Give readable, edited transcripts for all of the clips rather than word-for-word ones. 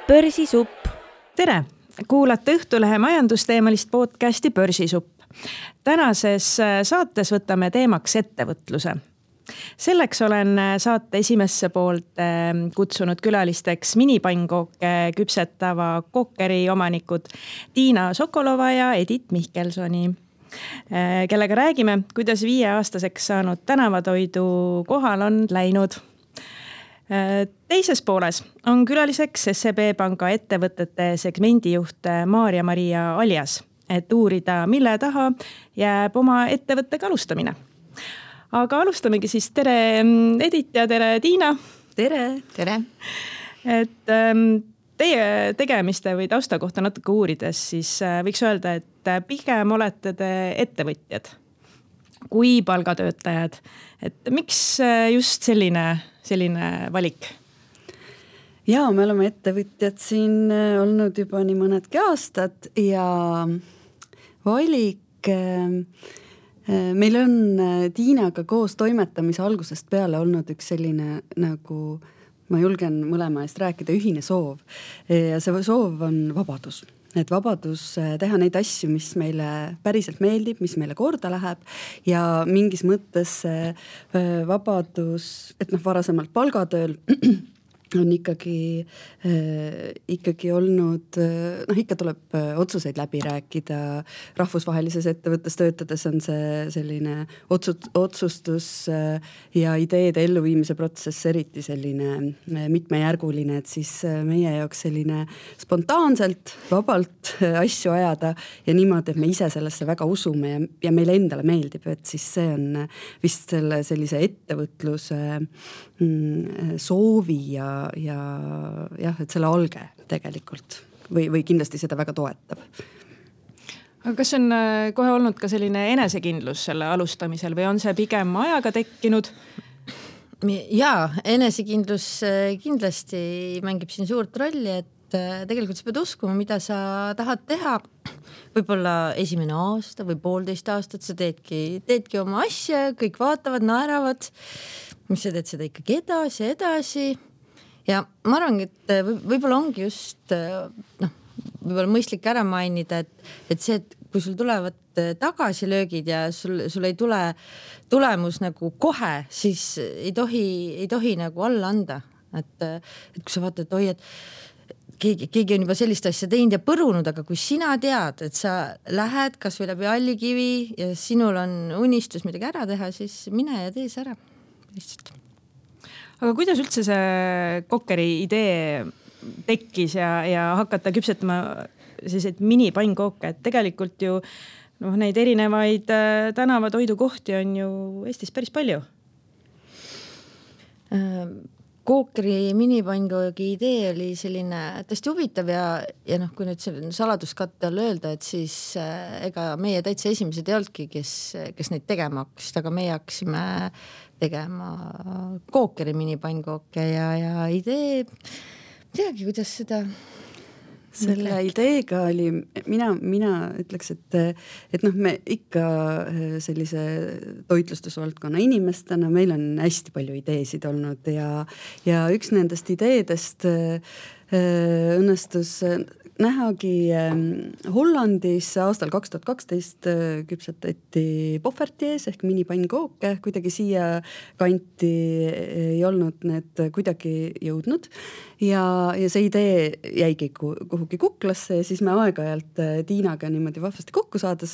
Börsisupp. Tere! Kuulate Õhtulehe majandusteemalist podcasti Börsisupp. Tänases saates võtame teemaks ettevõtluse. Selleks olen saate esimesse poolt kutsunud külalisteks minipannkooke küpsetava Kookeri omanikud Tiina Sokolova ja Edith Mihkelsoni, kellega räägime, kuidas 5-aastaseks saanud tänavatoidu kohal on läinud. Teises pooles on külaliseks SEB Panga ettevõtete segmendijuht Maarja-Maria Aljas, et uurida, mille taha jääb oma ettevõttega alustamine. Aga alustamegi siis. Tere Edith ja tere Tiina. Tere! Tere! Et teie tegemiste või tausta kohta natuke uurides, siis võiks öelda, et pigem olete te ettevõtjad kui palgatöötajad. Et miks just selline valik? Ja, me oleme ettevõtjad siin olnud juba nii mõnedki aastad ja valik meil on Tiinaga koos toimetamise algusest peale olnud üks selline, nagu ma julgen mõlema eest rääkida, ühine soov. Ja see soov on vabadus. Et vabadus teha neid asju, mis meile päriselt meeldib, mis meile korda läheb ja mingis mõttes vabadus, et varasemalt palgatööl on ikkagi olnud, ikka tuleb otsuseid läbi rääkida. Rahvusvahelises ettevõttes töötades on see selline otsustus ja ideede elluviimise protsess eriti selline mitmejärguline, et siis meie jaoks selline spontaanselt, vabalt asju ajada ja niimoodi, et me ise sellesse väga usume ja meile endale meeldib, et siis see on vist sellise ettevõtluse soovi ja jah, et selle alge tegelikult või kindlasti seda väga toetab. Aga kas on kohe olnud ka selline enesekindlus selle alustamisel või on see pigem ajaga tekkinud? Jaa, enesekindlus kindlasti mängib siin suurt rolli, et tegelikult sa pead uskuma, mida sa tahad teha. Võib-olla esimene aasta või 1,5 aastat sa teedki oma asja, kõik vaatavad, naeravad, mis sa teed seda ikkagi edasi. Ja ma arvan, et võib-olla ongi just võib-olla mõistlik ära mainida, et see, et kui sul tulevad tagasilöögid ja sul ei tule tulemus nagu kohe, siis ei tohi nagu alla anda. Et kui sa vaatad, et keegi on juba sellist asja teinud ja põrunud, aga kui sina tead, et sa lähed kas või läbi Allikivi ja sinul on unistus midagi ära teha, siis mine ja tee see ära. Lihtsalt. Aga kuidas üldse see Kookeri idee tekkis ja hakata küpsetama selliseid minipannkooke, et tegelikult ju neid erinevaid tänavatoidukohti on ju Eestis päris palju? Kookeri minipannkogi idee oli selline tõesti huvitav ja kui nüüd selline saladuskatte all öelda, et siis ega meie täitsa esimesed ei olnudki, kes neid tegema hakkasid, aga meie hakkasime tegema Kookeri minipannkooke ja idee, teagi, kuidas seda selle ideega oli, mina ütleks, et me ikka sellise toitlustusvaldkonna inimestena, meil on hästi palju ideesid olnud ja üks nendest ideedest õnnestus nähagi Hollandis aastal 2012 küpsetati Poffertjes ehk minipannkooke, kuidagi siia kanti ei olnud need kuidagi jõudnud ja see idee jäigi kuhugi kuklasse ja siis me aeg-ajalt Tiinaga niimoodi vahvasti kokku saades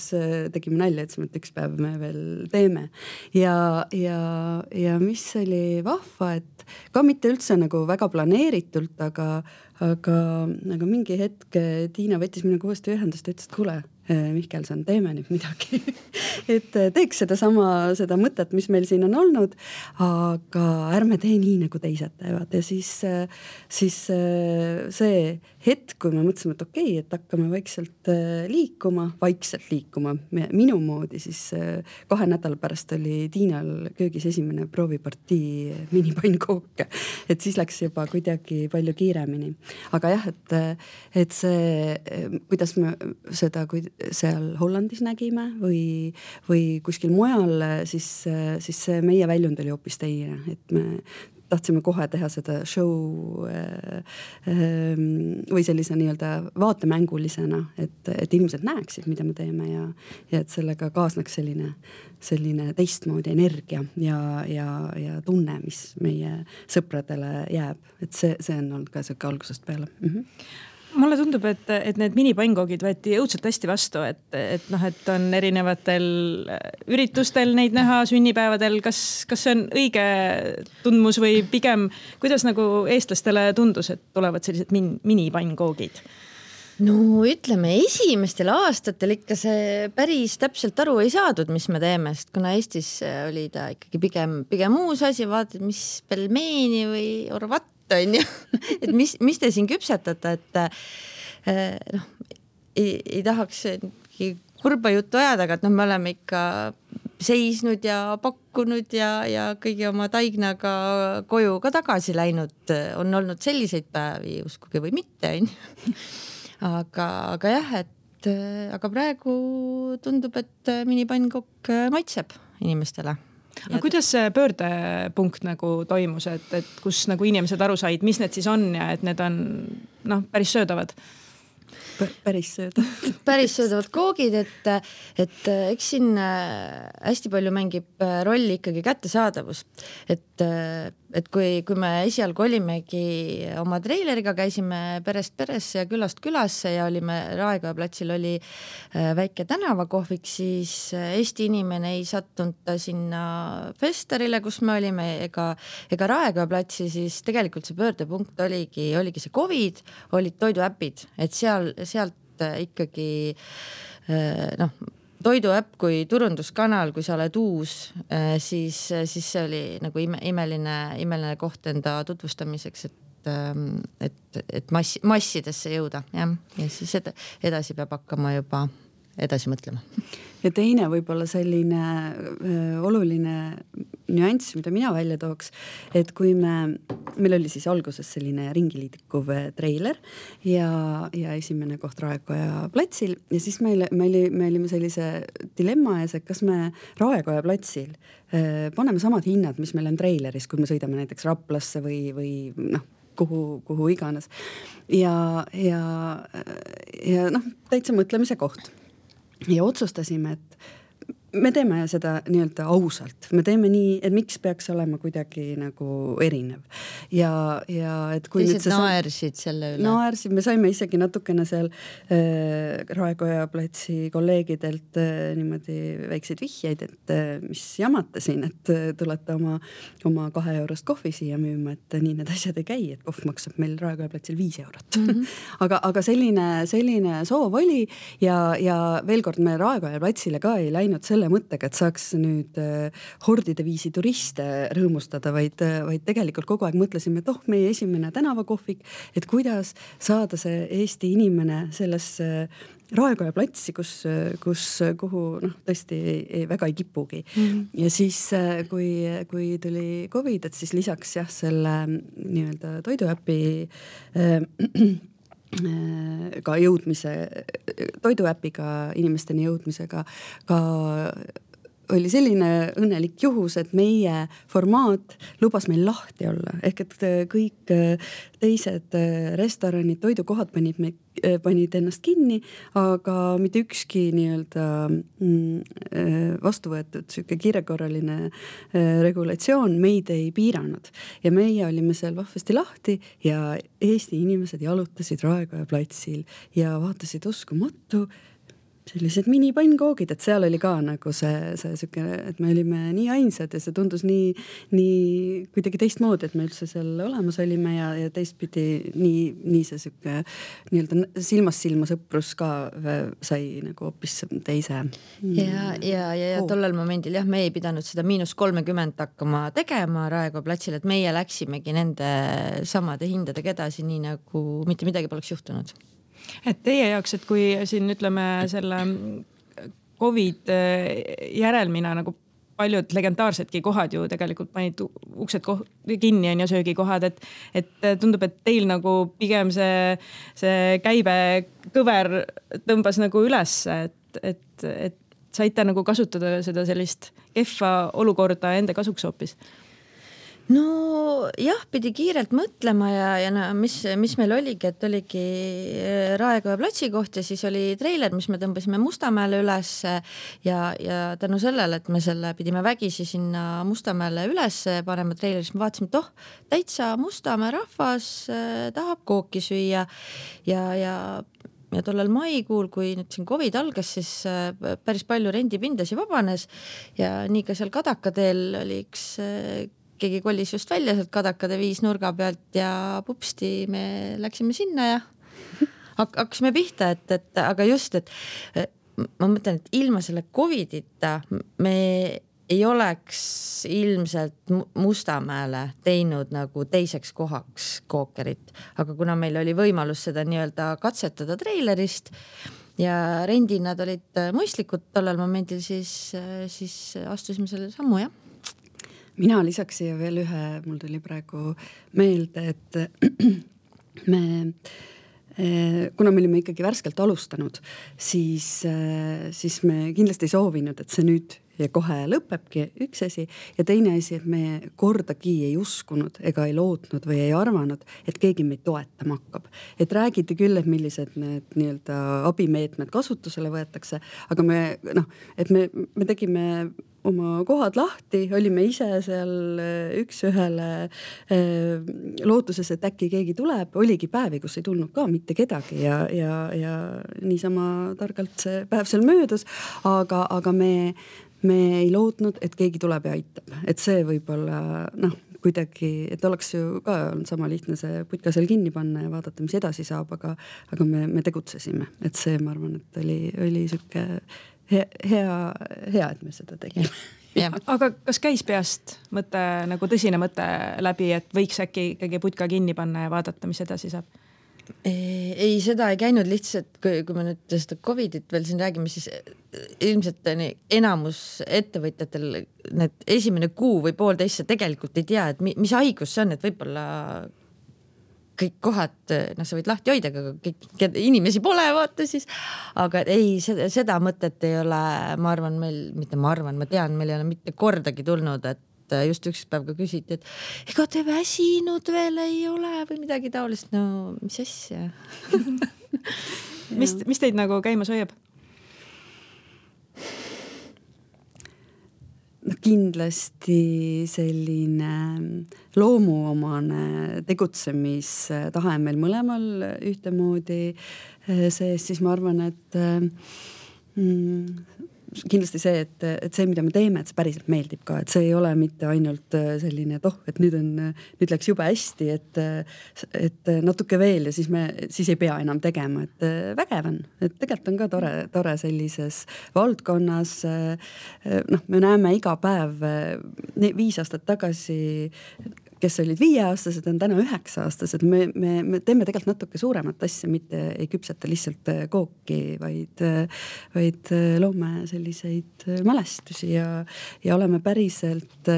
tegime nalja, et üks päev me veel teeme ja mis oli vahva, et ka mitte üldse nagu väga planeeritult, aga mingi hetk Tiina võttis minuga uuesti ühendust ja ütles, et kuule, Mihkelson, teeme nüüd midagi. Et teeks seda mõtet, mis meil siin on olnud, aga ärme tee nii, nagu teised teevad. Ja siis see hetk, kui me mõtlesime, et okei, et hakkame vaikselt liikuma minu moodi, siis 2 nädala pärast oli Tiinal köögis esimene proovipartii minipannkooke. Et siis läks juba kuidagi palju kiiremini. Aga jah, et see, kuidas me seda seal Hollandis nägime või kuskil mujal, siis see meie väljund oli hoopis teine, et me tahtsime kohe teha seda show või sellise nii-öelda vaatemängulisena, et inimesed näeksid, mida me teeme ja et sellega kaasneks selline teistmoodi energia ja tunne, mis meie sõpradele jääb. Et see on olnud ka selline algusest peale. Mulle tundub, et need minipangoogid võeti õudselt hästi vastu, et on erinevatel üritustel neid näha, sünnipäevadel. Kas see on õige tundmus või pigem, kuidas nagu eestlastele tundus, et tulevad sellised minipangoogid? No ütleme, esimestel aastatel ikka see päris täpselt aru ei saadud, mis me teeme, sest kuna Eestis oli ta ikkagi pigem uus asi, vaatad, mis pelmeeni või orvat on ju, et mis te siin küpsetate, et ei tahaks kurba juttu ajada, aga et me oleme ikka seisnud ja pakkunud ja kõigi oma taignaga koju ka tagasi läinud. On olnud selliseid päevi, uskuge või mitte, on ju. Aga jah, aga praegu tundub, et minipannkokk maitseb inimestele. Aga kuidas see pöördepunkt nagu toimus, et kus nagu inimesed aru said, mis need siis on ja et need on päris söödavad? Päris söödavad koogid, et eks siin hästi palju mängib rolli ikkagi kättesaadavus. Et kui me esialgu olimegi oma treileriga, käisime perest peresse ja külast külasse ja olime Raekoja platsil oli väike tänavakohvik, siis Eesti inimene ei sattunud sinna festarile, kus me olime, ega Raekoja platsi, siis tegelikult see pöördepunkt oligi see COVID, olid toiduäpid, et sealt ikkagi toiduäpp kui turunduskanal, kui sa oled uus, siis see oli nagu imeline koht enda tutvustamiseks, et massidesse jõuda. Ja siis edasi peab hakkama juba edasi mõtlema. Ja teine võib-olla selline oluline nüanss, mida mina välja tooks, et kui meil oli siis alguses selline ringiliidikuv treiler ja esimene koht Raekoja platsil ja siis me olime sellise dilemma ees, et kas me Raekoja platsil paneme samad hinnad, mis meil on treileris, kui me sõidame näiteks Raplasse või kuhu iganes. Ja täitsa mõtlemise koht. Ja otsustasime, et me teeme seda nii-öelda ausalt. Me teeme nii, et miks peaks olema kuidagi nagu erinev. Ja et kui teised naersid selle üle. Naersid, me saime isegi natukene seal Raekoja platsi kolleegidelt niimoodi väikseid vihjeid, et mis jamate siin, et tulete oma 2 eurost kohvi siia müüma, et nii need asjad ei käi, et kohv maksab meil Raekoja platsil 5 eurot. aga selline soov oli ja veel kord me Raekoja platsile ka ei läinud selle mõttega, et saaks nüüd hordide viisi turiste rõõmustada, vaid tegelikult kogu aeg mõtlesime, et meie esimene tänavakohvik, et kuidas saada see Eesti inimene sellesse Raekoja platsi, kuhu tõesti väga ei kipugi. Ja siis, kui tuli COVID, et siis lisaks selle nii-öelda toiduäpi ka jõudmise, toiduäpiga inimesteni jõudmisega ka oli selline õnnelik juhus, et meie formaat lubas meil lahti olla. Ehk et kõik teised restoranid, toidukohad panid ennast kinni, aga mitte ükski nii-öelda vastu võetud kiirekorraline regulatsioon meid ei piiranud. Ja meie olime seal vahvasti lahti ja Eesti inimesed jalutasid Raekoja platsil ja vaatasid uskumatu sellised minipankoogid, et seal oli ka nagu see süke, et me olime nii ainsad ja see tundus nii kuidagi teistmoodi, et me üldse seal olemas olime ja teistpidi nii see süke nii-öelda silmast silma sõprus ka sai nagu hoopis teise. Ja tollel momendil me ei pidanud seda -30 hakkama tegema Raekoja platsil, et meie läksimegi nende samade hindadega edasi, nii nagu mitte midagi poleks juhtunud. Et teie jaoks, et kui siin ütleme selle COVID järelmina nagu paljud legendaarsedki kohad ju tegelikult panid uksed kinni on ja söögikohad, et tundub, et teil nagu pigem see käibekõver tõmbas nagu üles, et saite nagu kasutada seda sellist kehva olukorda enda kasuks hoopis. No jah, pidi kiirelt mõtlema ja no, mis meil oligi, et oligi Raekoja platsi koht ja siis oli treiler, mis me tõmbasime Mustamäele üles ja tänu sellele, et me selle pidime vägisi sinna Mustamäele üles panema treileri, siis me vaatasime, et täitsa Mustamäe rahvas tahab kooki süüa ja tollel maikuul, kui nüüd siin COVID algas, siis päris palju rendipindasi vabanes ja nii ka seal Kadakateel oli üks keegi kolis just välja sealt Kadakade 5 nurga pealt ja pupsti me läksime sinna ja hakkasime pihta, et aga just, et ma mõtlen, et ilma selle COVIDita me ei oleks ilmselt Mustamäele teinud nagu teiseks kohaks kookerit, aga kuna meil oli võimalus seda nii-öelda katsetada treilerist ja rendi nad olid mõistlikud tollel momendil, siis astusime selle sammu, jah. Mina lisaks siia veel ühe, mul tuli praegu meelde, et kuna me olime ikkagi värskelt alustanud, siis me kindlasti ei soovinud, et see nüüd ja kohe lõpebki üks asi ja teine asi, et me kordagi ei uskunud ega ei lootnud või ei arvanud, et keegi meid toetama hakkab. Et räägiti küll, et millised need nii-öelda abimeetmed kasutusele võetakse, aga me tegime oma kohad lahti, olime ise seal üks-ühele lootuses, et äkki keegi tuleb, oligi päevi, kus ei tulnud ka mitte kedagi ja niisama targalt see päev seal möödus, aga me ei lootnud, et keegi tuleb ja aitab, et see võib-olla kuidagi, et oleks ju ka olnud sama lihtne see putka seal kinni panna ja vaadata, mis edasi saab, aga me tegutsesime, et see, ma arvan, et oli süke hea, et me seda tegime. Aga kas käis peast mõte, nagu tõsine mõte läbi, et võiks äkki ikkagi putka kinni panna ja vaadata, mis edasi saab? Ei, seda ei käinud lihtsalt, kui me nüüd seda COVIDit veel siin räägime, siis ilmselt enamus ettevõtjatel need esimene kuu või poolteist tegelikult ei tea, et mis haigus see on, et võib-olla kõik kohad, sa võid lahti hoida, aga kõik inimesi pole, vaata siis. Aga ei, seda mõtet ei ole, ma tean, meil ei ole mitte kordagi tulnud, et just üks päev ka küsiti, et ega te väsinud veel ei ole või midagi taolist. No, mis asja? Mis teid nagu käimas hoiab? Kindlasti selline loomuomane tegutsemistahe meil mõlemal ühtemoodi sees, siis ma arvan, et kindlasti see, et see, mida me teeme, et see päriselt meeldib ka, et see ei ole mitte ainult selline, et nüüd läks jube hästi, et natuke veel ja siis ei pea enam tegema, et vägev on, et tegelikult on ka tore sellises valdkonnas. Me näeme iga päev 5 aastat tagasi, kes olid 5-aastased, on täna 9-aastased. Me teeme tegelikult natuke suuremat asja, mitte ei küpseta lihtsalt kooki, vaid loome selliseid mälestusi ja oleme päriselt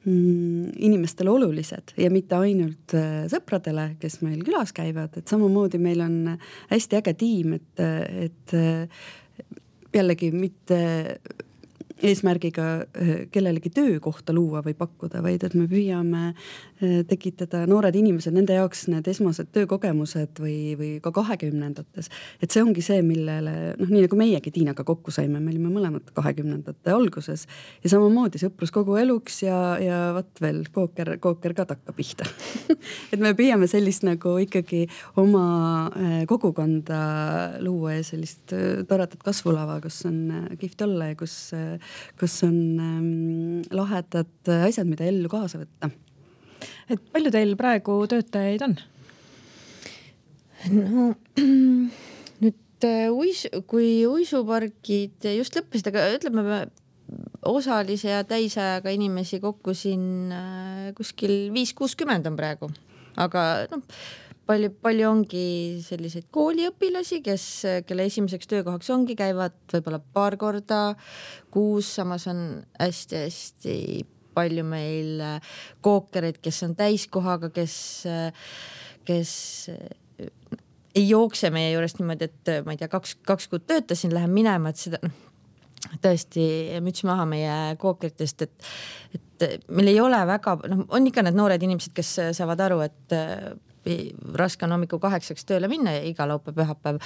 inimestele olulised ja mitte ainult sõpradele, kes meil külas käivad, et samamoodi meil on hästi äge tiim, et jällegi mitte eesmärgiga kellelegi töökohta luua või pakkuda, vaid et me püüame tekitada noored inimesed, nende jaoks need esmased töökogemused või ka 20-ndates. Et see ongi see, millele, nii nagu meiegi Tiinaga kokku saime, me olime mõlemad 20-ndate alguses ja samamoodi sõprus kogu eluks ja vat veel kooker ka takka pihta. Et me püüame sellist nagu ikkagi oma kogukonda luua ja sellist toredat kasvulava, kus on kihvt olla ja kus on lahedad asjad, mida ellu kaasa võtta. Et palju teil praegu töötajaid on? No nüüd kui uisupargid just lõppesid, aga ütleme osalise ja täisajaga inimesi kokku siin kuskil 5-60 on praegu. Aga palju ongi selliseid kooliõpilasi, kelle esimeseks töökohaks ongi, käivad võib-olla paar korda kuus, samas on hästi-hästi palju meil kookereid, kes on täiskohaga, kes ei jookse meie juurest niimoodi, et ma ei tea, kaks kuud töötasin, lähen minema, et seda tõesti müts maha meie kookeritest, et meil ei ole väga, on ikka need noored inimesed, kes saavad aru, et raske on hommikul 8 tööle minna iga laupäev, pühapäev,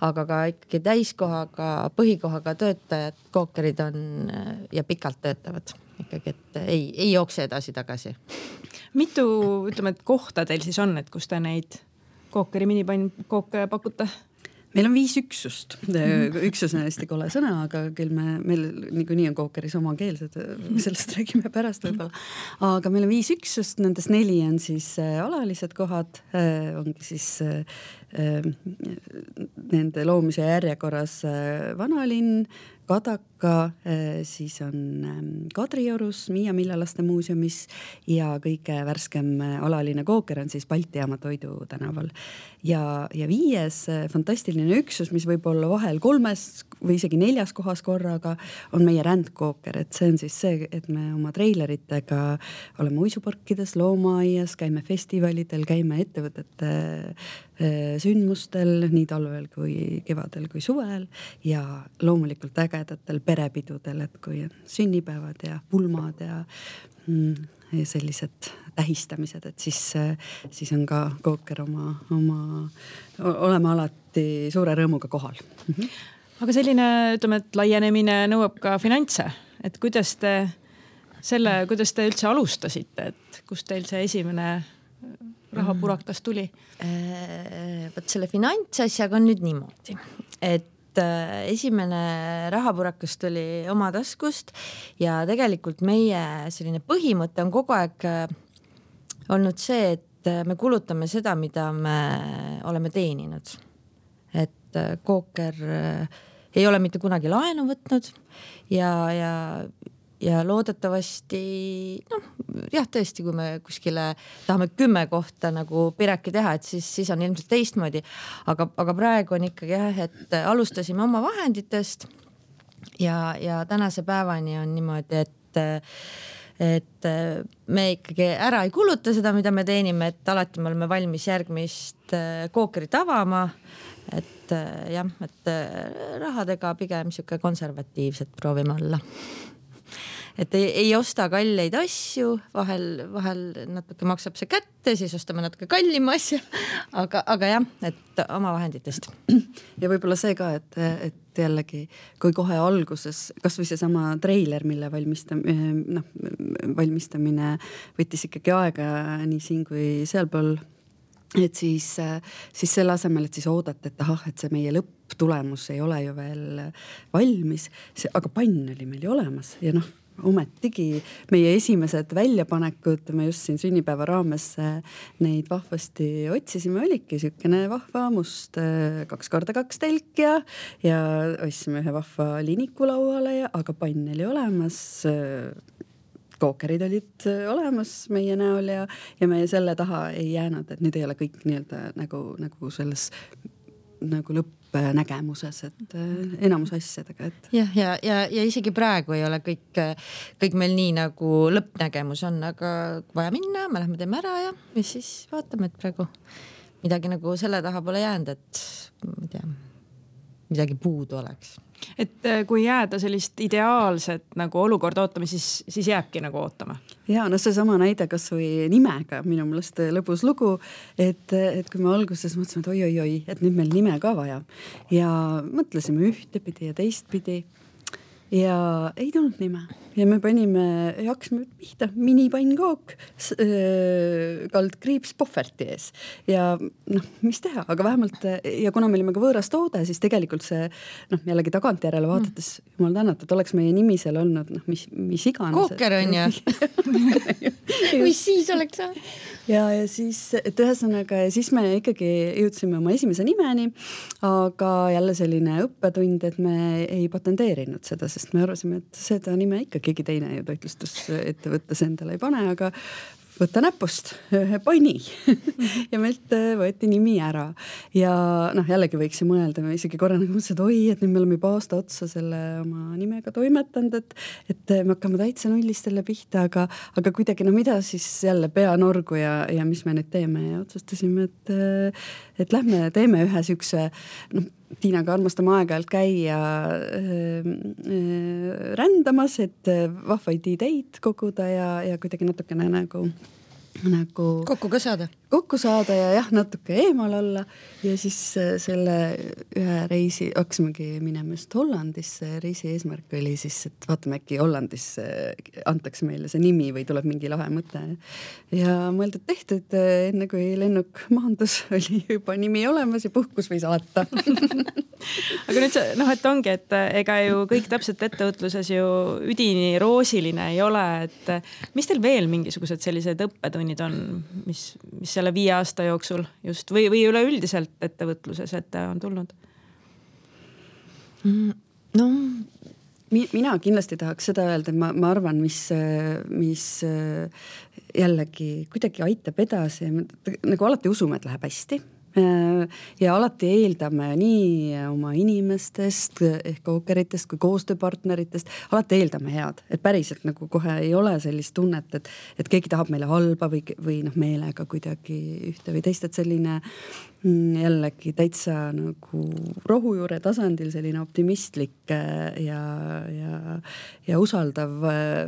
aga ka ikkagi täiskohaga, põhikohaga töötajad, kookerid on ja pikalt töötavad ikkagi, et ei jookse edasi-tagasi. Mitu, ütleme, et kohta teil siis on, et kus te neid kookeri minipainkooke pakute? Meil on 5 üksust. Üksus on hästi kole sõna, aga küll meil niikuinii on kookeris omakeelsed, sellest räägime pärast võib-olla. Aga meil on 5 üksust, nendes 4 on siis alalised kohad, ongi siis nende loomise järjekorras Vanalinn, Kadaka, siis on Kadriorus, Miia Millalaste muuseumis ja kõige värskem alaline kooker on siis Balti Jaama Toidu tänaval. Ja 5. fantastiline üksus, mis võib olla vahel 3 või isegi 4 kohas korraga, on meie rändkooker, et see on siis see, et me oma treileritega oleme uisuparkides, loomaaias, käime festivalidel, käime ettevõtete sündmustel nii talvel kui kevadel kui suvel ja loomulikult ägedatel perepidudel, et kui on sünnipäevad ja pulmad ja sellised tähistamised, et siis on ka kooker oleme alati suure rõõmuga kohal. Aga selline, ütleme, et laienemine nõuab ka finantse, et kuidas te üldse alustasite, et kust teil see esimene rahapurakas tuli? Võt selle finantsasjaga on nüüd niimoodi, et esimene rahapurakas tuli oma taskust ja tegelikult meie selline põhimõte on kogu aeg olnud see, et me kulutame seda, mida me oleme teeninud. Et kooker ei ole mitte kunagi laenu võtnud ja loodetavasti, tõesti, kui me kuskile tahame 10 kohta nagu pireki teha, et siis on ilmselt teistmoodi. Aga praegu on ikkagi et alustasime oma vahenditest ja tänase päevani on niimoodi, et me ikkagi ära ei kuluta seda, mida me teenime, et alati me oleme valmis järgmist kookerit avama. Et rahadega pigem siuke konservatiivset proovime olla. Et ei osta kalleid asju, vahel natuke maksab see kätte, siis ostame natuke kallima asja, aga jah, et oma vahenditest. Ja võib-olla see ka, et jällegi, kui kohe alguses, kas või see sama treiler, mille valmistamine võttis ikkagi aega nii siin kui sealpool, et siis selle asemel, et siis oodata, et see meie lõpptulemus ei ole ju veel valmis, aga pann oli meil ju olemas ja ometigi meie esimesed väljapanekud, me just siin sünnipäeva raames neid vahvasti otsisime, oligi sükene vahva must 2x2 telk ja ostsime ühe vahva liniku lauale, aga pann oli olemas, kookerid olid olemas meie näol ja me selle taha ei jäänud, et nüüd ei ole kõik nii-öelda nagu selles nagu lõppnägemuses, et enamus asjadega, et. Ja isegi praegu ei ole kõik meil nii nagu lõppnägemus on, aga vaja minna, me lähme teeme ära ja siis vaatame, et praegu midagi nagu selle taha pole jäänud, et ma ei tea, midagi puudu oleks. Et kui jääda sellist ideaalset nagu olukorda ootama, siis jääbki nagu ootama. Ja see sama näide kas või nimega, minu meelest lõbus lugu, et kui me alguses mõtlesime, et oi, et nüüd meil nime ka vaja ja mõtlesime ühtepidi ja teistpidi ja ei tulnud nime ja me hakkasime pihta minipannkook kaldkriips Pohverti ees ja mis teha, aga vähemalt ja kuna me olime ka võõras toode, siis tegelikult see jällegi tagantjärele vaadates jumal tänatud, oleks meie nimi seal olnud mis iganes. Kooker on ja mis siis oleks ja siis, et ühesõnaga ja siis me ikkagi jõudsime oma esimese nimeni, aga jälle selline õppetund, et me ei patenteerinud seda, sest me arvasime, et seda nime ikka keegi teine ju toitlustusettevõttes endale ei pane, aga võtta näpust ühe panni ja meilt võeti nimi ära. Ja jällegi võiks ju mõelda, me isegi korra nagu mõtlesin, et oi, et nüüd me oleme juba aasta otsa selle oma nimega toimetanud, et me hakkame täitsa nullist jälle pihta, aga kuidagi mida siis jälle pea norgu ja mis me nüüd teeme ja otsustasime, et lähme teeme ühe siukse, Tiinaga armastame aeg-ajalt käia rändamas, et vahvaid ideid koguda ja kuidagi natukene nagu kokku saada ja jah, natuke eemal olla ja siis selle ühe reisi hakkasimegi minema just Hollandisse. Reisi eesmärk oli siis, et vaatame äkki Hollandis antakse meile see nimi või tuleb mingi lahe mõte ja mõeldud tehtud, enne kui lennuk maandus oli juba nimi olemas ja puhkus või saata. Aga nüüd et ongi, et ega ju kõik täpselt ettevõtluses ju üdini roosiline ei ole, et mis teil veel mingisugused sellised õppetunnid on, mis selle 5 aasta jooksul just või üleüldiselt ettevõtluses ette on tulnud? Mina kindlasti tahaks seda öelda, et ma arvan, mis jällegi kuidagi aitab edasi, nagu alati usume, et läheb hästi. Ja alati eeldame nii oma inimestest ehk kookeritest kui koostööpartneritest, alati eeldame head, et päriselt nagu kohe ei ole sellist tunnet, et keegi tahab meile halba või meelega kuidagi ühte või teist, et selline jällegi täitsa nagu rohujuure tasandil selline optimistlik ja usaldav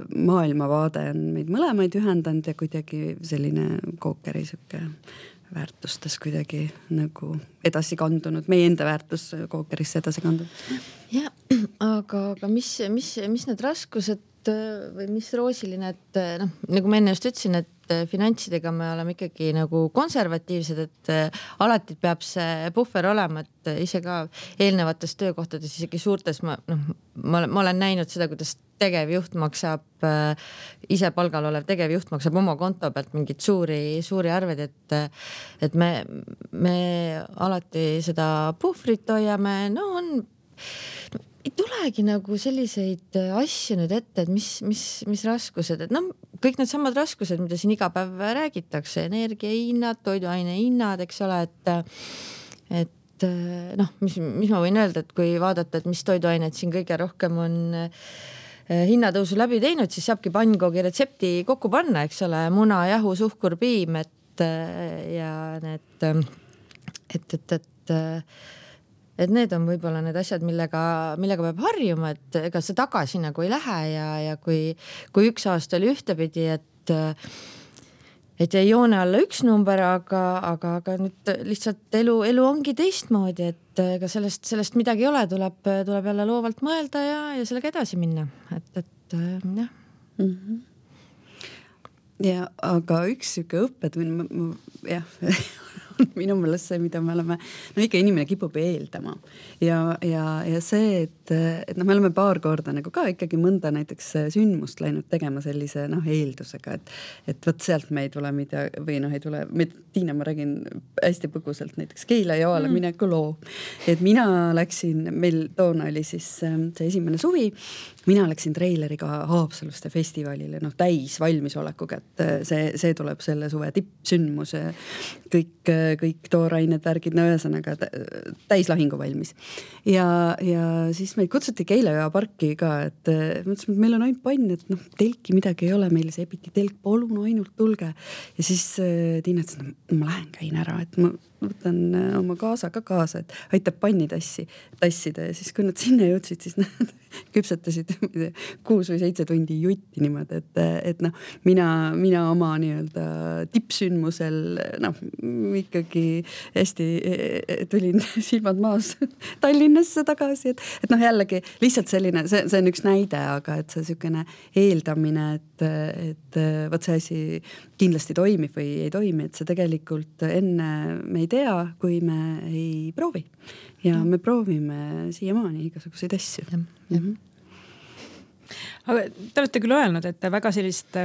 maailmavaade on meid mõlemaid ühendanud ja kuidagi selline kookeri siuke väärtustes kuidagi nagu edasi kandunud, meie enda väärtus kookerisse edasi kandunud. Ja, aga mis need raskused või mis roosiline, et nagu ma enne just ütlesin, et finantsidega me oleme ikkagi nagu konservatiivsed, et alati peab see puhver olema, et ise ka eelnevates töökohtades, isegi suurtes ma olen näinud seda, kuidas tegevjuht maksab, ise palgal olev tegevjuht maksab oma konto pealt mingid suuri arved, et me alati seda puhvrit hoiame, ei tulegi nagu selliseid asju nüüd ette, et mis raskused, et kõik need samad raskused, mida siin iga päev räägitakse, energiahinnad, toiduaine hinnad, eks ole, et mis ma võin öelda, et kui vaadata, et mis toiduained siin kõige rohkem on hinnatõusu läbi teinud, siis saabki pannkoogi retsepti kokku panna, eks ole, muna, jahu, suhkur, piim, ja need, et need on võib-olla need asjad, millega peab harjuma, et ega see tagasi nagu ei lähe ja kui üks aasta oli ühtepidi, et jäi joone alla üks number, aga nüüd lihtsalt elu ongi teistmoodi, et ega sellest midagi ei ole, tuleb jälle loovalt mõelda ja sellega edasi minna, et jah. Mm-hmm. Ja aga üks siuke õppetund, jah, minu meelest see, mida me oleme, ikka inimene kipub eeldama ja see, et me oleme paar korda nagu ka ikkagi mõnda näiteks sündmust läinud tegema sellise eeldusega, et võt sealt me ei tule või ei tule, Tiina, ma räägin hästi põgusalt näiteks Keila joale mineku loo, et mina läksin, meil toona oli siis see esimene suvi, mina läksin treileriga Haapsaluste festivalile, täis valmisolekuga, et see tuleb selle suve tippsündmus, kõik toorained, värgid, ühesõnaga täis lahingu valmis. Ja siis meid kutsuti Keila parki ka, et mõtlesime, et meil on ainult pann, et telki midagi ei ole, meil see epiti telk, palun ainult tulge. Ja siis Tiina ütles, ma lähen käin ära, et ma võtan oma kaasa ka kaasa, et aitab panni tassida ja siis kui nad sinna jõudsid, siis nad küpsetasid 6 või 7 tundi jutti niimoodi, et mina oma nii-öelda tippsündmusel ikkagi hästi tulin silmad maas Tallinnasse tagasi, et jällegi lihtsalt selline, see on üks näide, aga et see sükene eeldamine, et võt see asi kindlasti toimib või ei toimi, et see tegelikult enne me ei tea, kui me ei proovi. Ja me proovime siiamaani igasuguseid asju. Aga te olete küll öelnud, et te väga sellist,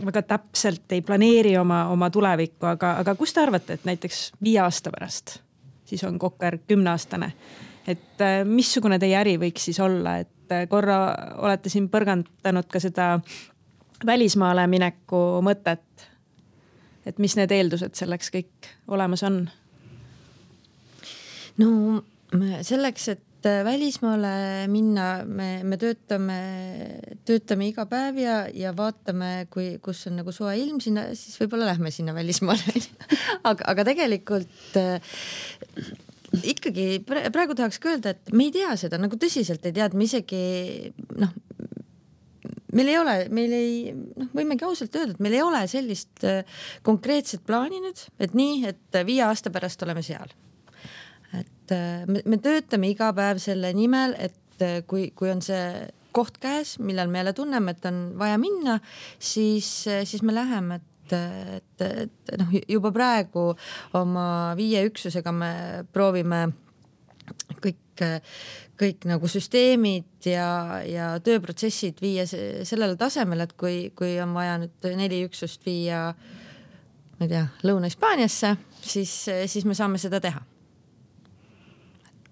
väga täpselt ei planeeri oma tulevikku, aga kus te arvate, et näiteks 5 aasta pärast, siis on Kokker 10-aastane, et missugune teie äri võiks siis olla, et korra olete siin põrgandanud ka seda välismaale mineku mõtet, et mis need eeldused selleks kõik olemas on? No selleks, et välismaale minna, me töötame iga päev ja vaatame, kus on nagu soe ilm sinna, siis võib-olla lähme sinna välismaale. aga tegelikult ikkagi praegu tahaks öelda, et me ei tea seda, nagu tõsiselt ei tea, et me isegi võimegi ausalt öelda, et meil ei ole sellist konkreetset plaani nüüd, et nii, et 5 aasta pärast oleme seal. Et me töötame iga päev selle nimel, et kui on see koht käes, millal me jälle tunneme, et on vaja minna, siis me läheme, et juba praegu oma 5 üksusega me proovime kõik nagu süsteemid ja tööprotsessid viia sellele tasemele, et kui on vaja nüüd 4 üksust viia, ma ei tea, Lõuna-Hispaaniasse, siis me saame seda teha.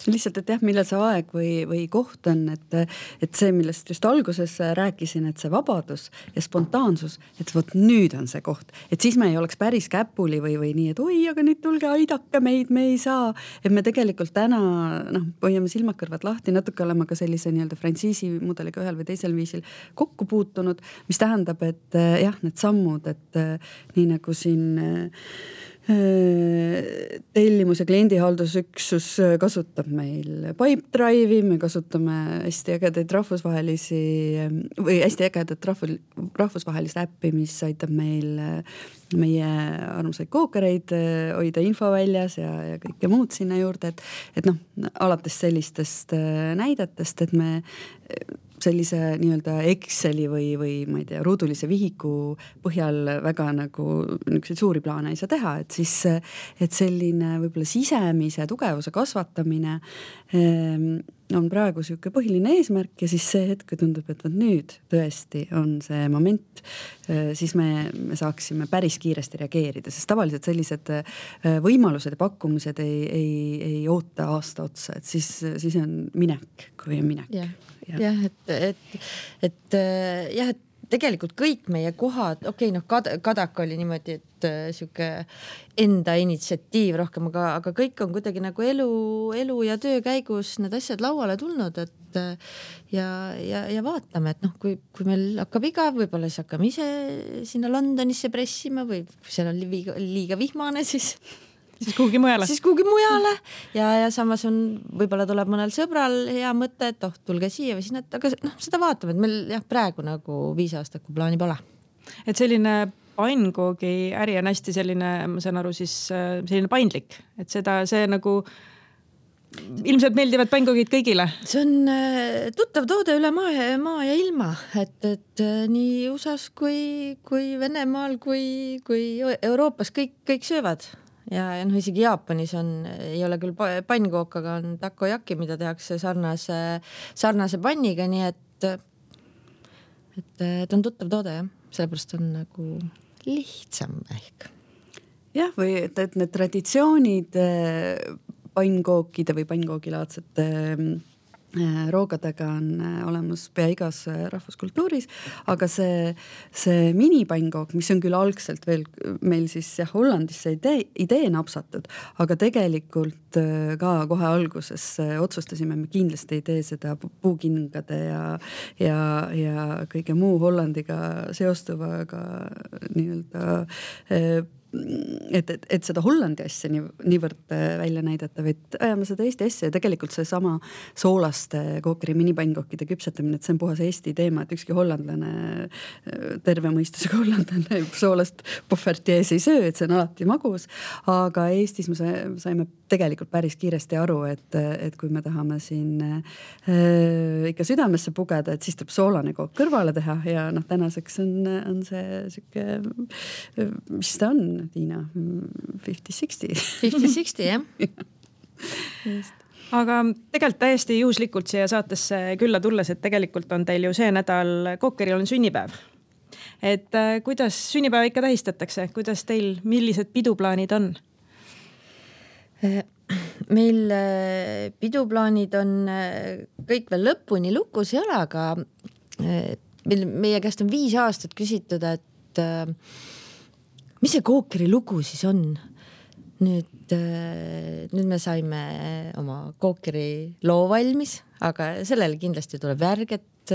Lihtsalt, et jah, millal see aeg või koht on, et see, millest just alguses rääkisin, et see vabadus ja spontaansus, et võt nüüd on see koht, et siis me ei oleks päris käpuli või nii, et oi, aga nüüd tulge, aidake meid, me ei saa. Et me tegelikult täna hoiame silmakõrvad lahti, natuke oleme ka sellise nii-öelda frantsiisi mudeliga ühel või teisel viisil kokku puutunud, mis tähendab, et jah, need sammud, et nii nagu siin tellimus- ja kliendihaldusüksus kasutab meil Pipedrive'i, me kasutame hästi ägedaid hästi ägedat rahvusvahelist äppi, mis aitab meil meie armsaid kookereid hoida info väljas ja kõike muud sinna juurde, et alates sellistest näidetest, et me sellise nii-öelda Exceli või ma ei tea, ruudulise vihiku põhjal väga nagu niisuguseid suuri plaane ei saa teha, et selline võib-olla sisemise tugevuse kasvatamine on praegu siuke põhiline eesmärk ja siis see hetk tundub, et nüüd tõesti on see moment, siis me saaksime päris kiiresti reageerida, sest tavaliselt sellised võimalused ja pakkumised ei oota aasta otsa, et siis on minek, kui on minek. Jah, et tegelikult kõik meie kohad, Kadak oli niimoodi, et siuke enda initsiatiiv rohkem, aga kõik on kuidagi nagu elu ja töö käigus need asjad lauale tulnud, et ja vaatame, et kui meil hakkab igav, võib-olla siis hakkame ise sinna Londonisse pressima või kui seal on liiga vihmane, siis kuhugi mujale. Ja samas võib-olla tuleb mõnel sõbral hea mõte, et tulge siia või sinna, aga seda vaatame, et meil praegu nagu 5 aastat, kui plaani pole. Et selline pannkoogi äri on hästi selline, ma saan aru, siis selline paindlik, et see nagu ilmselt meeldivad pannkoogid kõigile. See on tuttav toode üle maa ja ilma, et nii USAs kui Venemaal kui Euroopas kõik söövad. Ja isegi Jaapanis ei ole küll pannkook, aga on takoyaki, mida tehakse sarnase panniga, nii et on tuttav toode, jah. Sellepärast on nagu lihtsam ehk. Jah, või et need traditsioonid pannkookide või pannkoogilaadsete roogadega on olemas pea igas rahvuskultuuris, aga see minipannkook, mis on küll algselt veel meil siis Hollandisse idee napsatud, aga tegelikult ka kohe alguses otsustasime, me kindlasti ei tee seda puukingade ja kõige muu Hollandiga seostuvaga nii-öelda et seda Hollandi asja niivõrd välja näidata, vaid ajame seda Eesti asja ja tegelikult see sama soolaste kookeri minipannkookide küpsetamine, et see on puhas Eesti teema, et ükski hollandlane, terve mõistusega hollandlane soolast Poffertjes ei söö, et see on alati magus, aga Eestis me saime tegelikult päris kiiresti aru, et kui me tahame siin ikka südamesse pugeda, et siis tuleb soolane kook kõrvale teha ja tänaseks on see siuke, mis ta on, Tiina, 50-60. 50-60, jah. Aga tegelikult täiesti juhuslikult siia saatesse külla tulles, et tegelikult on teil ju see nädal kookeril on sünnipäev. Et kuidas sünnipäeva ikka tähistatakse? Kuidas teil, millised piduplaanid on? Meil piduplaanid on kõik veel lõpuni lukus ei ole, aga meie käest on 5 aastat küsitud, et mis see Kookeri lugu siis on? Nüüd me saime oma Kookeri loo valmis, aga sellele kindlasti tuleb järg, et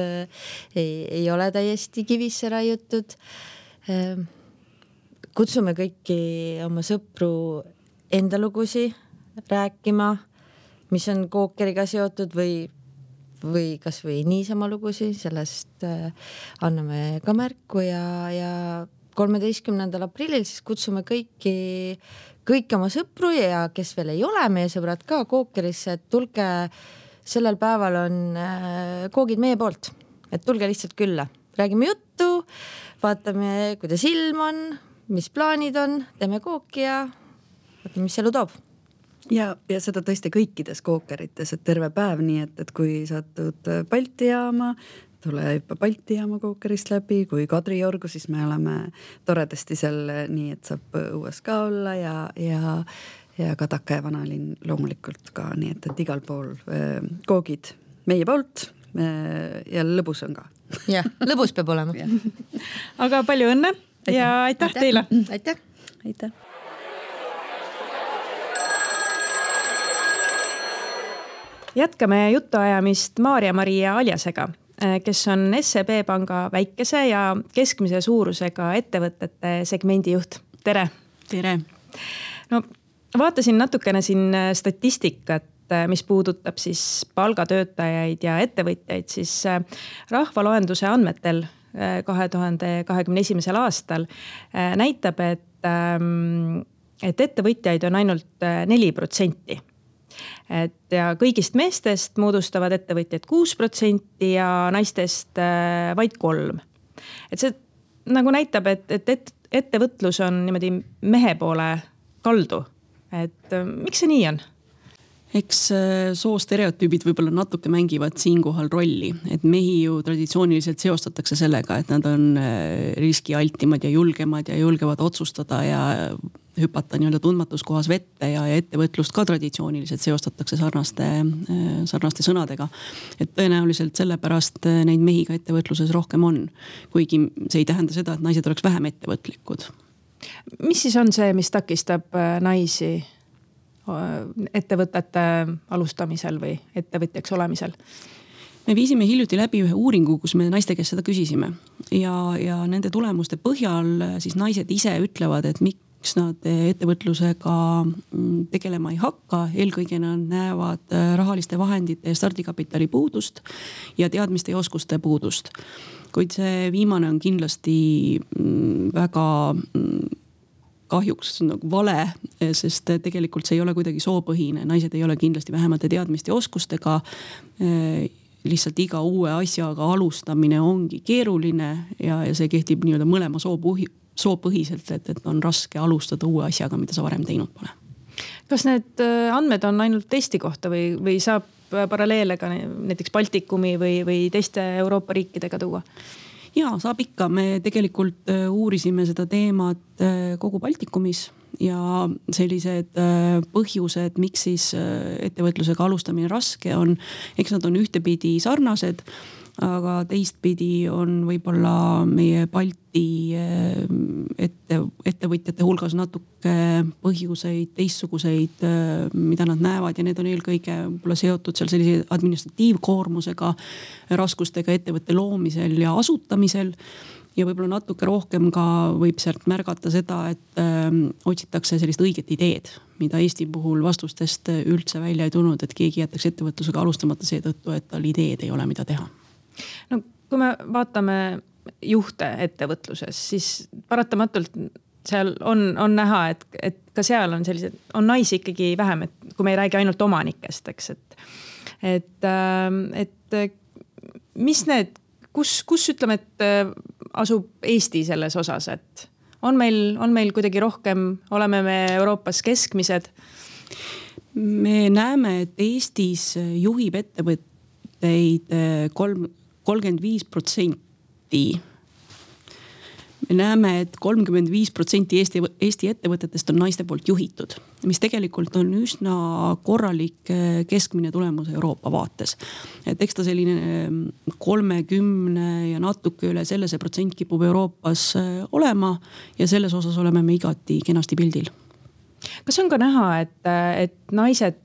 ei ole täiesti kivisse raiutud. Kutsume kõiki oma sõpru enda lugusi rääkima, mis on Kookeriga seotud või kas või niisama lugusi, sellest anname ka märku ja 13. aprillil siis kutsume kõik oma sõpru ja kes veel ei ole meie sõbrad ka Kookerisse, et tulge, sellel päeval on koogid meie poolt, et tulge lihtsalt külla, räägime juttu, vaatame, kuidas ilm on, mis plaanid on, teeme kooki ja vaatame, mis elu toob. Ja seda tõesti kõikides Kookerites, et terve päev, nii et kui satud Balti jaama, tule juba Balti jaama Kookerist läbi, kui Kadriorgu, siis me oleme toredasti seal nii, et saab õues ka olla ja Kadaka ja Vanalinn loomulikult ka, nii et igal pool koogid meie poolt ja lõbus on ka. Jah, lõbus peab olema. Aga palju õnne ja aitäh teile! Aitäh! Aitäh! Jätkame jutuajamist Maarja-Maria Aljasega, kes on SEB panga väikese ja keskmise suurusega ettevõtete segmendi juht. Tere! Tere! No, vaatasin natukene siin statistikat, mis puudutab siis palgatöötajaid ja ettevõtjaid, siis rahvaloenduse andmetel 2021. aastal näitab, et ettevõtjaid on ainult 4%. Ja kõigist meestest moodustavad ettevõtjad 6% ja naistest vaid 3%. Et see nagu näitab, et ettevõtlus on niimoodi mehe poole kaldu. Et miks see nii on? Eks soostereotüübid võib-olla natuke mängivad siinkohal rolli, et mehi ju traditsiooniliselt seostatakse sellega, et nad on riskialtimad ja julgevad otsustada ja hüpata nii-öelda tundmatus kohas vette ja ettevõtlust ka traditsiooniliselt seostatakse sarnaste sõnadega. Et tõenäoliselt sellepärast neid mehi ka ettevõtluses rohkem on, kuigi see ei tähenda seda, et naised oleks vähem ettevõtlikud. Mis siis on see, mis takistab naisi ettevõtete alustamisel või ettevõtjaks olemisel? Me viisime hiljuti läbi ühe uuringu, kus me naiste käest seda küsisime ja nende tulemuste põhjal siis naised ise ütlevad, et miks nad ettevõtlusega tegelema ei hakka. Eelkõige nad näevad rahaliste vahendite ja stardikapitali puudust ja teadmiste ja oskuste puudust. Kuid see viimane on kindlasti väga kahjuks nagu vale, sest tegelikult see ei ole kuidagi soopõhine. Naised ei ole kindlasti vähemate teadmiste ja oskustega. Lihtsalt iga uue asjaga alustamine ongi keeruline ja see kehtib nii-öelda mõlema soopõhiselt, et on raske alustada uue asjaga, mida sa varem teinud pole. Kas need andmed on ainult Eesti kohta või saab paralleele ka näiteks Baltikumi või teiste Euroopa riikidega tuua? Ja, saab ikka. Me tegelikult uurisime seda teemat kogu Baltikumis ja sellised põhjused, miks siis ettevõtlusega alustamine raske on, eks nad on ühtepidi sarnased, aga teistpidi on võib-olla meie Balti ettevõtjate hulgas natuke põhjuseid, teistsuguseid, mida nad näevad ja need on eelkõige seotud seal sellise administratiivkoormusega, raskustega ettevõtte loomisel ja asutamisel. Ja võib-olla natuke rohkem ka võib sealt märgata seda, et otsitakse sellist õiget ideed, mida Eesti puhul vastustest üldse välja ei tulnud, et keegi jätaks ettevõtlusega alustamata seetõttu, et tal ideed ei ole, mida teha. No, kui me vaatame juhte ettevõtluses, siis paratamatult seal on näha, et ka seal on sellised, on naisi ikkagi vähem, et kui me ei räägi ainult omanikest, eks, et mis need, kus ütleme, et asub Eesti selles osas, et on meil kuidagi rohkem, oleme me Euroopas keskmised? Me näeme, et Eestis juhib ettevõtteid 35%. me näeme, et 35% Eesti ettevõtetest on naiste poolt juhitud, mis tegelikult on üsna korralik keskmine tulemus Euroopa vaates. Et eks ta selline 30 ja natuke üle selle see protsent kipub Euroopas olema ja selles osas oleme me igati kenasti pildil. Kas on ka näha, et naised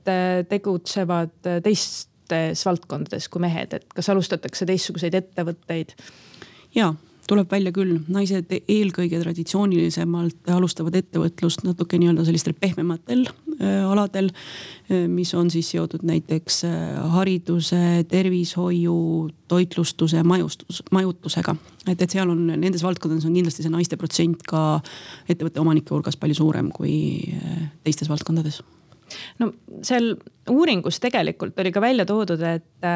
tegutsevad teistes valdkondades kui mehed, et kas alustatakse teistsuguseid ettevõtteid? Jaa, tuleb välja küll. Naised eelkõige traditsioonilisemalt alustavad ettevõtlust natuke nii-öelda sellistel pehmematel aladel, mis on siis seotud näiteks hariduse, tervishoiu, toitlustuse, majutusega. Et seal on, nendes valdkondades on kindlasti see naiste protsent ka ettevõtte omanike hulgas palju suurem kui teistes valdkondades. No seal uuringus tegelikult oli ka välja toodud, et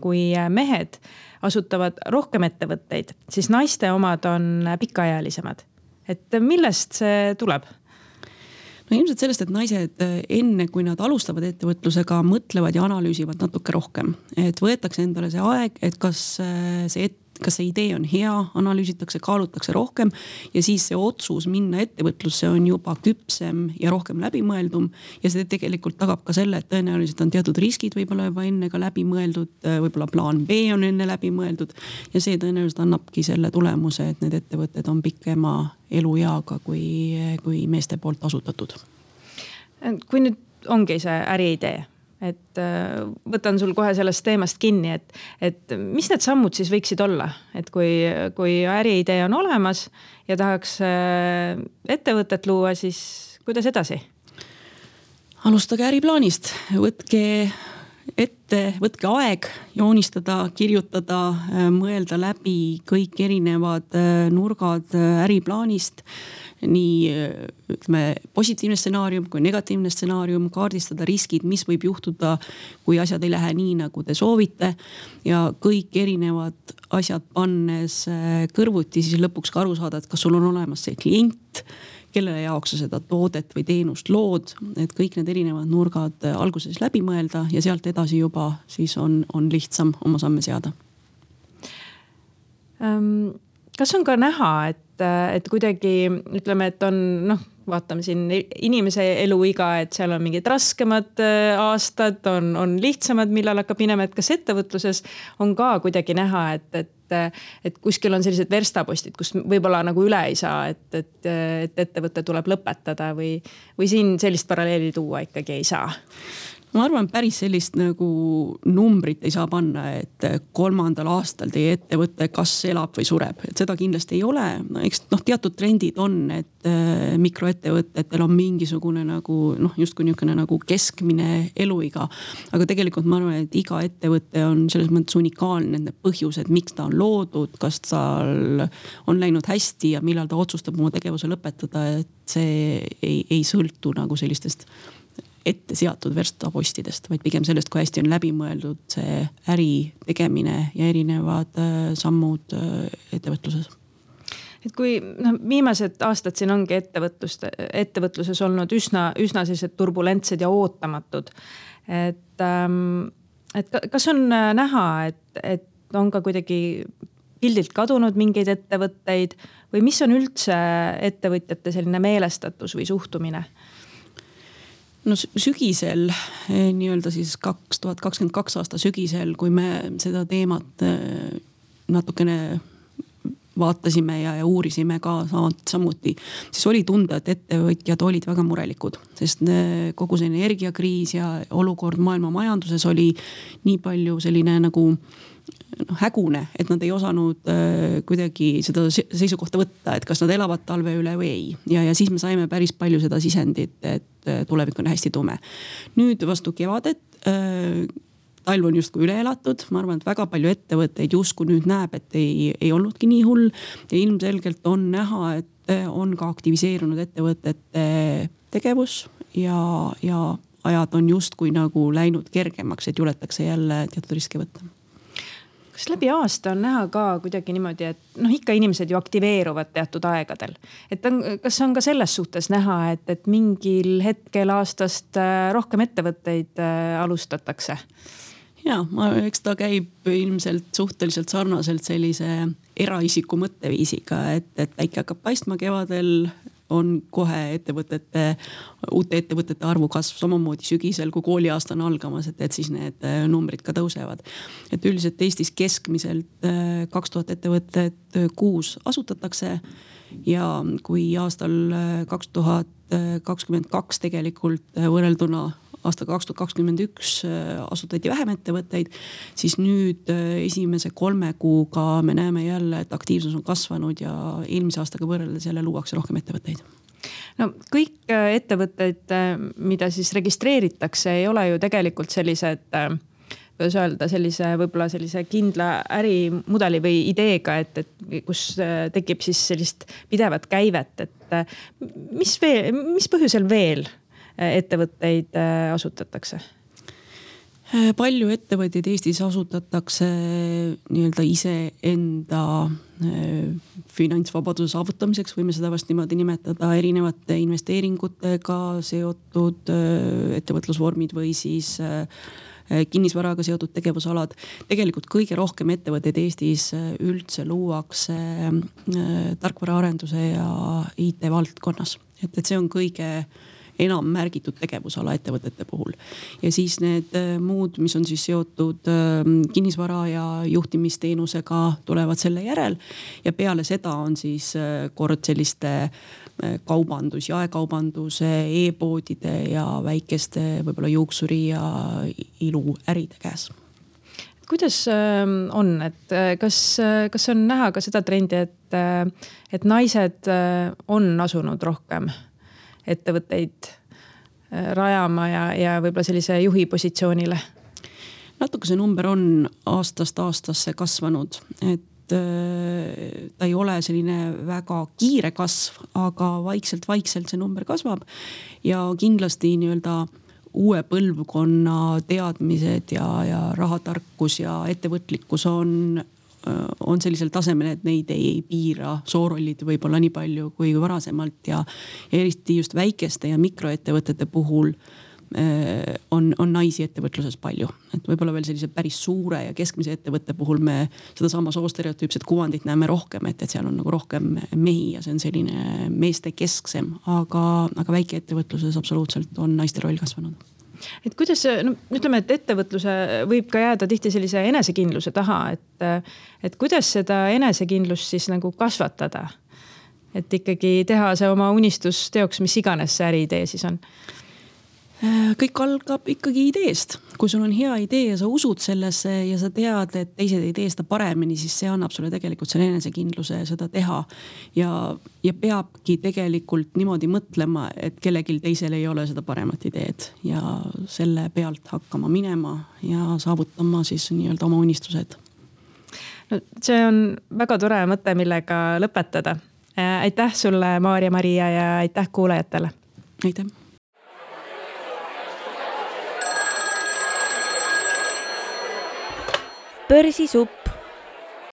kui mehed asutavad rohkem ettevõtteid, siis naiste omad on pikaealisemad. Et millest see tuleb? No ilmselt sellest, et naised enne, kui nad alustavad ettevõtlusega, mõtlevad ja analüüsivad natuke rohkem. Et võetakse endale see aeg, et kas see idee on hea, analüüsitakse, kaalutakse rohkem ja siis see otsus minna ettevõtlusse on juba küpsem ja rohkem läbimõeldum. Ja see tegelikult tagab ka selle, et tõenäoliselt on teatud riskid võib-olla juba enne ka läbimõeldud, võib-olla plaan B on enne läbimõeldud ja see tõenäoliselt annabki selle tulemuse, et need ettevõtted on pikema elueaga kui meeste poolt asutatud. Kui nüüd ongi see äriidee, et võtan sul kohe sellest teemast kinni, et mis need sammud siis võiksid olla, et kui äriidee on olemas ja tahaks ettevõtet luua, siis kuidas edasi? Alustage äriplaanist, võtke aeg joonistada, kirjutada, mõelda läbi kõik erinevad nurgad äriplaanist, nii ütleme, positiivne stsenaarium kui negatiivne stsenaarium, kaardistada riskid, mis võib juhtuda, kui asjad ei lähe nii, nagu te soovite ja kõik erinevad asjad pannes kõrvuti, siis lõpuks ka aru saada, et kas sul on olemas see klient, kellele jaoks sa seda toodet või teenust lood, et kõik need erinevad nurgad alguses läbi mõelda ja sealt edasi juba siis on lihtsam oma samme seada. Kas on ka näha, et kuidagi ütleme, et on, vaatame siin inimese eluiga, et seal on mingid raskemad aastad, on lihtsamad, millal hakkab minema, et kas ettevõtluses on ka kuidagi näha, et kuskil on sellised verstapostid, kus võib-olla nagu üle ei saa, et ettevõte tuleb lõpetada või siin sellist paralleeli tuua ikkagi ei saa? Ma arvan, päris sellist nagu numbrit ei saa panna, et 3. aastal teie ettevõte kas elab või sureb. Et seda kindlasti ei ole. Eks teatud trendid on, et mikroettevõtetel on mingisugune nagu justkui niisugune nagu keskmine eluiga. Aga tegelikult ma arvan, et iga ettevõte on selles mõttes unikaalne, nende põhjused, miks ta on loodud, kas tal on läinud hästi ja millal ta otsustab oma tegevuse lõpetada, et see ei sõltu nagu sellistest ette seatud verstapostidest, vaid pigem sellest, kui hästi on läbi mõeldud see äri tegemine ja erinevad sammud ettevõtluses. Et kui viimased aastad siin ongi ettevõtluses olnud üsna sellised turbulentsed ja ootamatud, et kas on näha, et on ka kuidagi pildilt kadunud mingeid ettevõtteid või mis on üldse ettevõtjate selline meelestatus või suhtumine? No sügisel, nii-öelda siis 2022 aasta sügisel, kui me seda teemat natukene vaatasime ja uurisime ka samuti, siis oli tunda, et ettevõtjad olid väga murelikud, sest kogu see energiakriis ja olukord maailma majanduses oli nii palju selline nagu hägune, et nad ei osanud kuidagi seda seisukohta võtta, et kas nad elavad talve üle või ei. Ja siis me saime päris palju seda sisendit, et tulevik on hästi tume. Nüüd vastu kevadet, talv on justkui üle elatud, ma arvan, et väga palju ettevõtteid justkui nüüd näeb, et ei olnudki nii hull ja ilmselgelt on näha, et on ka aktiviseerunud ettevõtete tegevus ja ajad on justkui nagu läinud kergemaks, et juletakse jälle teatud riske võtta. Kas läbi aasta on näha ka kuidagi niimoodi, et ikka inimesed ju aktiveeruvad teatud aegadel. Kas on ka selles suhtes näha, et mingil hetkel aastast rohkem ettevõtteid alustatakse? Jaa, eks ta käib ilmselt suhteliselt sarnaselt sellise eraisiku mõtteviisiga, et päike hakkab paistma kevadel, on kohe uute ettevõtete arvu kasv, samamoodi sügisel, kui kooliaasta on algamas, et siis need numbrid ka tõusevad. Et üldiselt Eestis keskmiselt 2000 ettevõtet kuus asutatakse ja kui aastal 2022 tegelikult võrrelduna aastaga 2021 asutati vähem ettevõtteid, siis nüüd esimese 3 kuuga me näeme jälle, et aktiivsus on kasvanud ja eelmise aastaga võrreldes jälle luuakse rohkem ettevõtteid. No kõik ettevõtteid, mida siis registreeritakse, ei ole ju tegelikult sellised, kuidas öelda, võib-olla sellise kindla ärimudeli või ideega, et kus tekib siis sellist pidevat käivet, et mis põhjusel veel ettevõtteid asutatakse? Palju ettevõtteid Eestis asutatakse nii-öelda iseenda finantsvabaduse saavutamiseks, võime seda vast niimoodi nimetada, erinevate investeeringutega seotud ettevõtlusvormid või siis kinnisvaraga seotud tegevusalad. Tegelikult kõige rohkem ettevõtteid Eestis üldse luuakse tarkvaraarenduse ja IT valdkonnas. Et see on kõige enam märgitud tegevusala ettevõtete puhul. Ja siis need muud, mis on siis seotud kinnisvara ja juhtimisteenusega, tulevad selle järel. Ja peale seda on siis kord selliste kaubandus, jaekaubanduse, e-poodide ja väikeste võib-olla juuksuri ja iluäride käes. Kuidas on, et kas on näha ka seda trendi, et naised on asunud rohkem ettevõtteid rajama ja võib-olla sellise juhi positsioonile? Natuke see number on aastast aastasse kasvanud, et ta ei ole selline väga kiire kasv, aga vaikselt see number kasvab ja kindlasti nii-öelda uue põlvkonna teadmised ja rahatarkus ja ettevõtlikkus on sellisel tasemel, et neid ei piira soorollid võib-olla nii palju kui varasemalt ja eriti just väikeste ja mikroettevõtete puhul on naisi ettevõtluses palju. Et võib-olla veel sellise päris suure ja keskmise ettevõtte puhul me seda sama soostereotüüpset kuvandit näeme rohkem, et seal on nagu rohkem mehi ja see on selline meeste kesksem, aga väikeettevõtluses absoluutselt on naiste roll kasvanud. Et kuidas, ütleme, et ettevõtluse võib ka jääda tihti sellise enesekindluse taha, et kuidas seda enesekindlust siis nagu kasvatada? Et ikkagi teha see oma unistus teoks, mis iganes see äriidee siis on? Kõik algab ikkagi ideest. Kui sul on hea idee ja sa usud sellesse ja sa tead, et teised ei tee seda paremini, siis see annab sulle tegelikult selle enesekindluse seda teha. Ja peabki tegelikult niimoodi mõtlema, et kellelgi teisel ei ole seda paremat ideed ja selle pealt hakkama minema ja saavutama siis nii-öelda oma unistused. No, see on väga tore mõte, millega lõpetada. Aitäh sulle, Maarja-Maria, ja aitäh kuulajatele. Aitäh. Börsisupp